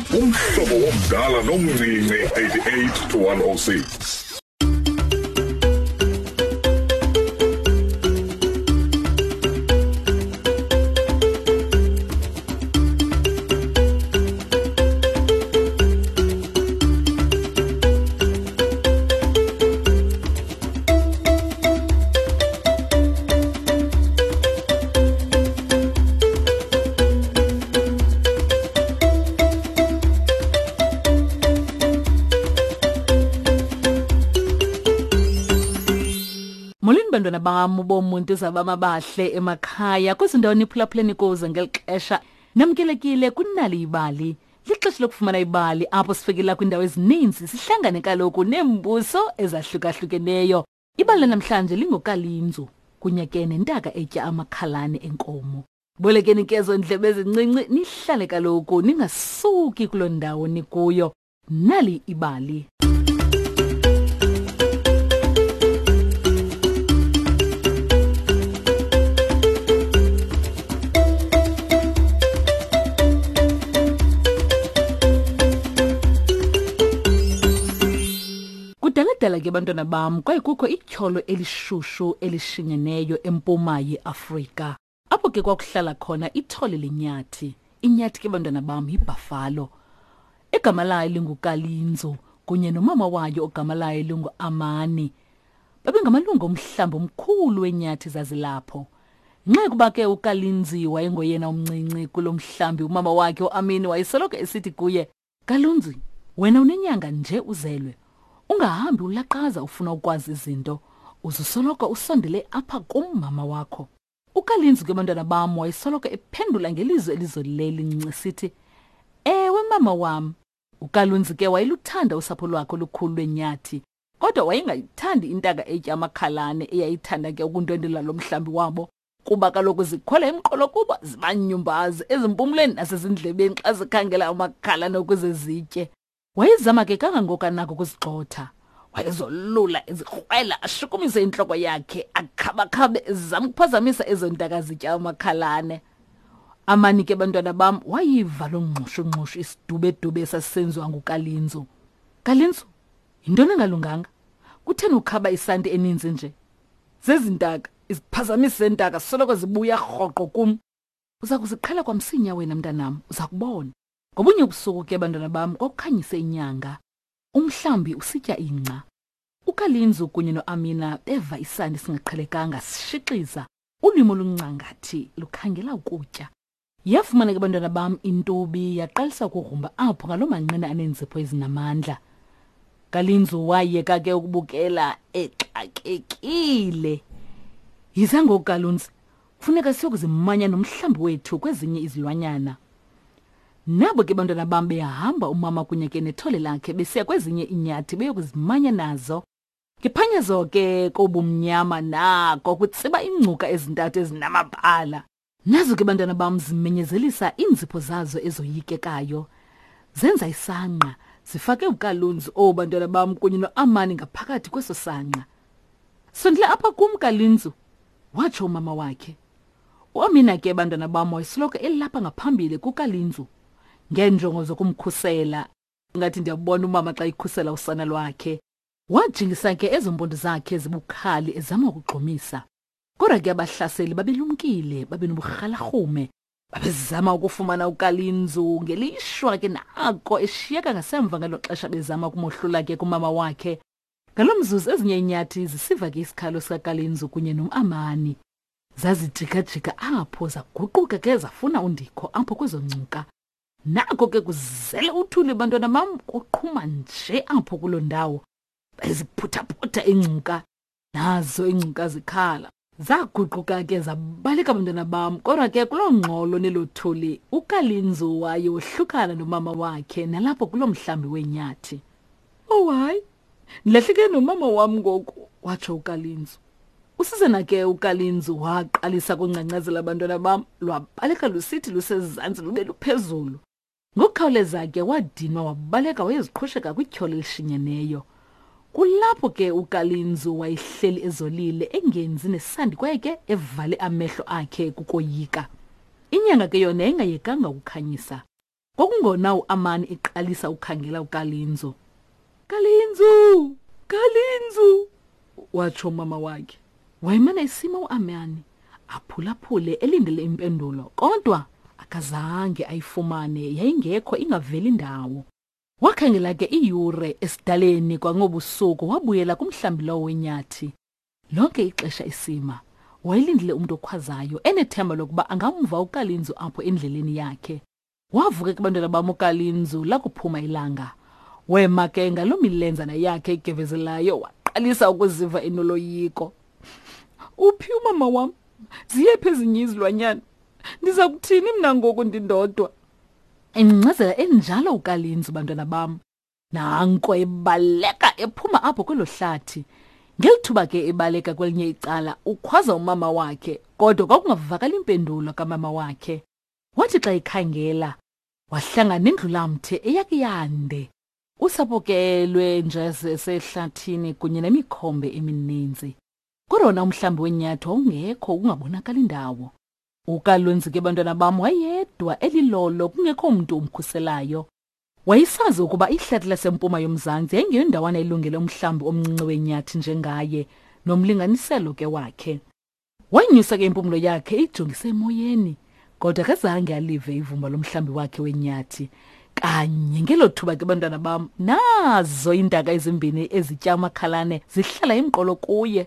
Umhlobo womdala nomncinci 88 to 106. Molweni bantwana bam bomuntu zabama bahle emakhaya kwizindawo niphulaphuleni kuzo ngeli xesha namkelekile kunali ibali lixesha lokufumana ibali apho sifikela kwiindawo ezininzi sihlangane kaloku neembuso ezahlukahlukeneyo Ibali lanamhlanje lingokalinzu kunye ke nentaka etya amakhalane enkomo. Bolekeni ke ezo ndlebe ezincinci nihlale kaloku ningasuki kuloo ndawo nikuyo. Nali ibali. Kudaladala ke bantwana bam kwaye kukho ityholo elishushu elishinyeneyo empuma yeAfrika. Apho ke kwakuhlala khona ithole lenyathi. Inyathi ke bantwana bam yibhafalo. Igama layo linguKalinzo kunye nomama wayo ogama layo linguAmani. Babengamalungu omhlambi omkhulu wenyathi zazilapho. Nxa kuba ke uKalinzi wayengoyena umncinci kulo mhlambi umama wakhe uAmini wayesoloko esithi kuye Kalunzi, wena unenyanga nje uzelwe. Ungahambi ulaqaza ufuna ukwazi izinto. Uzusoloko usondele apha kum mama wakho. UKalinzi ke bantwana bam wayesoloko ephendula ngelizwi elizolileyo lincinci esithi, Ewe mama wam. UKalunzi ke wayeluthanda usapho lwakhe olukhulu lwenyathi, kodwa wayengayithandi intaka etya amakhalane eyayithanda ke ukundwendwela lo mhlambi wabo. Kuba kaloku zikhwela emqolo kuba zibanyumbazi ezimpumlweni nasezindlebeni xa zikhangela amakhalane ukuze zitye. Wayezama ke kangangoko anako ukuzigxotha. Wayezolula ezikrwela ashukumise intloko yakhe akhabakhabe ezama ukuphazamisa ezo ntaka zitya amakhalane. Amani ke bantwana bam wayiva loo ngxushungxushu isidubedube esasisenziwa nguKalinzu. Kalinzu, yintoni engalunganga? Kutheni ukhaba isanti eninzi nje? Zezi ntaka, iziphazamisi zeentaka soloko zibuya rhoqo kum. Uza kuziqhela kwamsinya wena mntanam, uza kubona. Ngobunye ubusuku ke bantwana bam kwakukhanyise inyanga. Umhlambi usitya ingca. UKalinzu kunye noAmina beva isandi singaqhelekanga sishixiza, ulwimi oluncangathi lukhangela ukutya. Yafumana ke bantwana bam intubi yaqalisa ukugrumba apho ngaloo manqina aneenzipho ezinamandla. Kalinzu wayeka ke ukubukela exakekile. Yiza ngoku Kalunzi, kufuneka siyokuzimanya nomhlambi wethu kwezinye izilwanyana. Nabo ke bantwana bam behamba umama kunye ke nethole lakhe besiya kwezinye iinyathi beyokuzimanya nazo. Ngephanyazo ke kobumnyama nako kutsiba iingcuka ezintathu ezinamabala. Nazo ke bantwana bam zimenyezelisa iinzipho zazo ezoyikekayo. Zenza isangqa, zifake uKalunzi oh bantwana bam kunye noAmani ngaphakathi kweso sangqa. Sondela apha kum Kalinzu, watsho umama wakhe. UAmina ke bantwana bam wayesoloko elapha ngaphambili kuKalinzu ngeenjongo zokumkhusela. Ngathi ndiyabona umama xa ikhusela usana lwakhe. Wajingisa ke ezo mpondo zakhe zibukhali ezama ukugxumisa. Kodwa ke abahlaseli babelumkile, babenoburhalarhume. Babezama ukufumana uKalinzu ngelishwa ke nako eshiyeka ngasemva ngelo xesha bezama ukumohlula ke kumama wakhe. Ngalo mzuzu ezinye iinyathi zisiva ke isikhalo sikaKalinzu kunye nomAmani. Zazijikajika apho zaguquka ke zafuna undikho apho kwezo ngcuka. Nako ke kuzele uthuli bantwana bam kuqhuma nje apho kuloo ndawo. Beziphuthaphutha iingcuka nazo iingcuka zikhala. Zaguquka ke zabaleka bantwana bam kodwa ke kuloo ngxolo nelo thuli uKalinzu waye wohlukana nomama wakhe nalapho kuloo mhlambi weenyathi. Oh hayi, ndilahleke nomama wam ngoku, watsho uKalinzu. Usizana ke uKalinzu waqalisa kungcangcazela abantwana bam, lwabaleka lusithi lusezantsi lube luphezulu. Ngokukhawuleza ke wadinwa wabaleka wayeziqhusheka kwityholo elishinyeneyo. Kulapho ke uKalinzu wayehleli ezolile engenzi nesandi kwaye ke evale amehlo akhe kukoyika. Inyanga ke yona yayingayekanga ukukhanyisa. Kwakungona uAmani eqalisa ukukhangela uKalinzo. Kalinzu! Kalinzu! watsho umama wakhe. Wayemana esima uAmani, aphulaphule elindele impendulo, kodwa akazange ayifumane, yayingekho ingaveli ndawo. Wakhangela ke iiyure esidaleni kwangobusuku wabuyela kumhlambi lowo wenyathi. Lonke ixesha isima, wayelindile umntu okhwazayo enethemba lokuba angamva uKalinzu apho endleleni yakhe. Wavuka ke bantwana bam uKalinzu lakuphuma ilanga. Wema ke ngaloo milenzana yakhe igevezelayo waqalisa ukuziva enoloyiko. Uphi umama wam? Ziyephi ezinye izilwanyana? Ndiza kuthini mna ngoku ndindodwa? Engcazela enjalo uKalinzu bantwana bam. Nanko ebaleka ephuma apho kwelo hlathi. Ngeli thuba ke ebaleka kwelinye icala ukhwaza umama wakhe kodwa kwakungavakali impendulo kamama wakhe. Wathi xa ekhangela wahlangana nendlulamthe eyake yande. Usapho ke lwenja sehlathini kunye nemikhombe emininzi. Kodwa wona umhlambi wenyathi wawungekho kungabonakali ndawo. UKalunzi ke bantwana bam wayedwa elilolo kungekho mntu umkhuselayo. Wayesazi ukuba ihlathi lasempuma yomzantsi yayingeyondawana elungele umhlambi omncinci wenyathi njengaye nomlinganiselo ke wakhe. Wanyusa ke impumlo yakhe eyijongise emoyeni, kodwa akazange alive ivumba lomhlambi wakhe wenyathi. Kanye ngelo thuba ke bantwana bam, nazo iintaka ezimbini ezitya amakhalane zihlala emqolo kuye.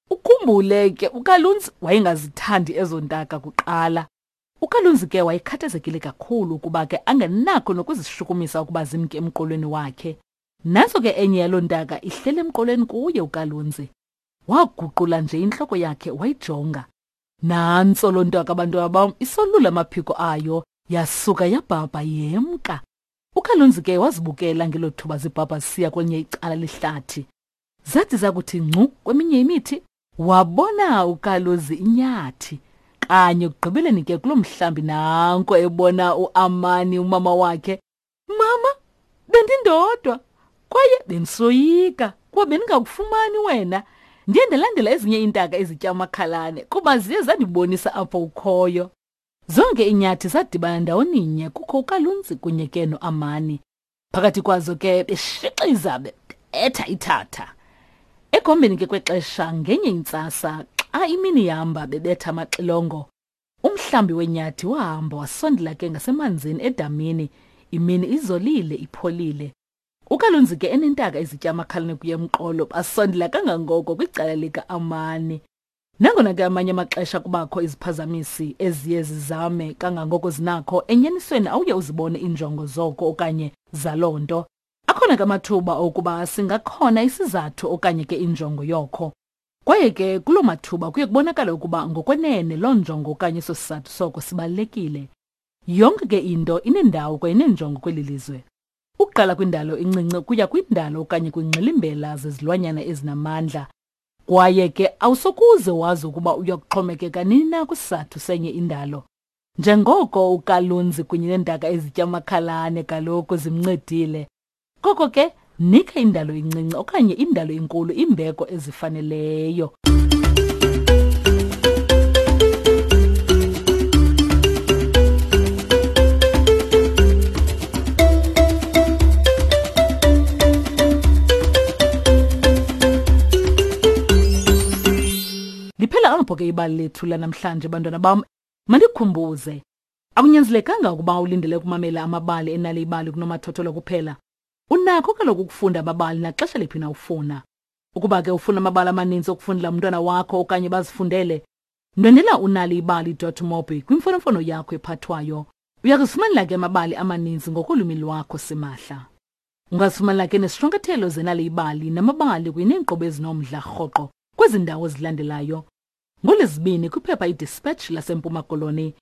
Ukhumbule ke uKalunzi wayengazithandi ezo ntaka kuqala. UKalunzi ke wayekhathazekile kakhulu ukuba ke angenakho nokuzishukumisa ukuba zimke emqolweni wakhe. Nantso ke enye yaloo ntaka ihleli emqolweni kuye uKalunzi. Waguqula nje intloko yakhe wayijonga. Nantso loo ntaka bantwana bam isolula amaphiko ayo yasuka yabhabha yemka. UKalunzi ke wazibukela ngelo thuba zibhabha zisiya kwelinye icala lehlathi. Zathi zakuthi ngcu kweminye imithi wabona uKaluzi inyathi. Kanye ekugqibeleni ke kuloo mhlambi nanko ebona uAmani umama wakhe. Mama, bendindodwa kwaye bendisoyika kuba bendingakufumani wena. Ndiye ndalandela ezinye iintaka ezitya amakhalane kuba ziye zandibonisa apho ukhoyo. Zonke iinyathi zadibana ndawoninye kukho uKalunzi kunye ke noAmani. Phakathi kwazo ke beshixiza bebetha ithatha. Ekuhambeni ke kwexesha ngenye intsasa xa imini ihamba bebetha amaxilongo, umhlambi wenyathi wahamba wasondela ke ngasemanzini edamini, imini izolile ipholile. UKalunzi ke enentaka ezitya amakhalane kuye emqolo basondela kangangoko kwicala lika-Amani. Nangona ke amanye amaxesha kubakho iziphazamisi eziye zizame kangangoko zinakho, enyanisweni awuye uzibone iinjongo zoko okanye zaloo nto. Akhona ke amathuba okuba singakhona isizathu okanye ke injongo yokho. Kwaye ke kuloo mathuba kuye kubonakale ukuba ngokwenene loo njongo okanye eso sizathu soko sibalulekile. Yonke ke into inendawo kwaye ineenjongo kweli lizwe. Ukuqala kwindalo encinci ukuya kwindalo okanye kwingxilimbela zezilwanyana ezinamandla. Kwaye ke awusokuze wazi ukuba uya kuxhomekeka nini na kwisizathu senye indalo. Njengoko uKalunzi kunye neentaka ezitya amakhalane kaloku zimncedile. Koko ke nika indalo incinci okanye indalo inkulu imbeko ezifaneleyo. Liphela apho ke ibali lethu lanamhlanje bantwana bam. Mandikhumbuze, akunyanzelekanga ukuba ulindele ukumamela amabali enale ibali kunomathotholo kuphela. Unakho kaloku ukufunda amabali naxesha liphi na ufuna. Ukuba ke ufuna amabali amaninzi okufundela umntwana wakho okanye bazifundele, ndwendela unaliibali.mobi kwimfonomfono yakho ephathwayo. Uya kuzifumanela ke amabali amaninzi ngokolwimi lwakho simahla. Ungazifumanela ke nesishwankathelo zenali ibali namabali kunye neenkqubo ezinomdla rhoqo kwezi ndawo zilandelayo. NgoLwezibini kwiphepha iDispatch laseMpuma Koloni.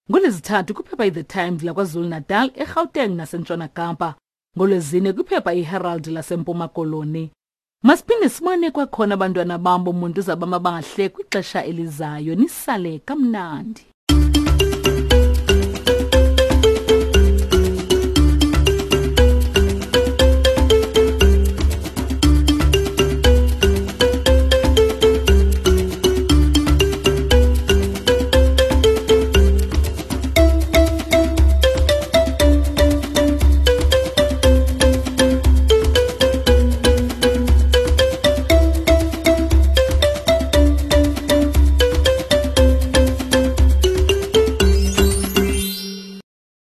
NgoLwezithathu kwiphepha iThe Times laKwaZulu-Natal, eGauteng naseNtshona Kapa. NgoLwezine kwiphepha iHerald laseMpuma Koloni. Masiphinde sibone kwakhona abantwana bam bomuntu zabamabahle kwixesha elizayo. Nisale kamnandi.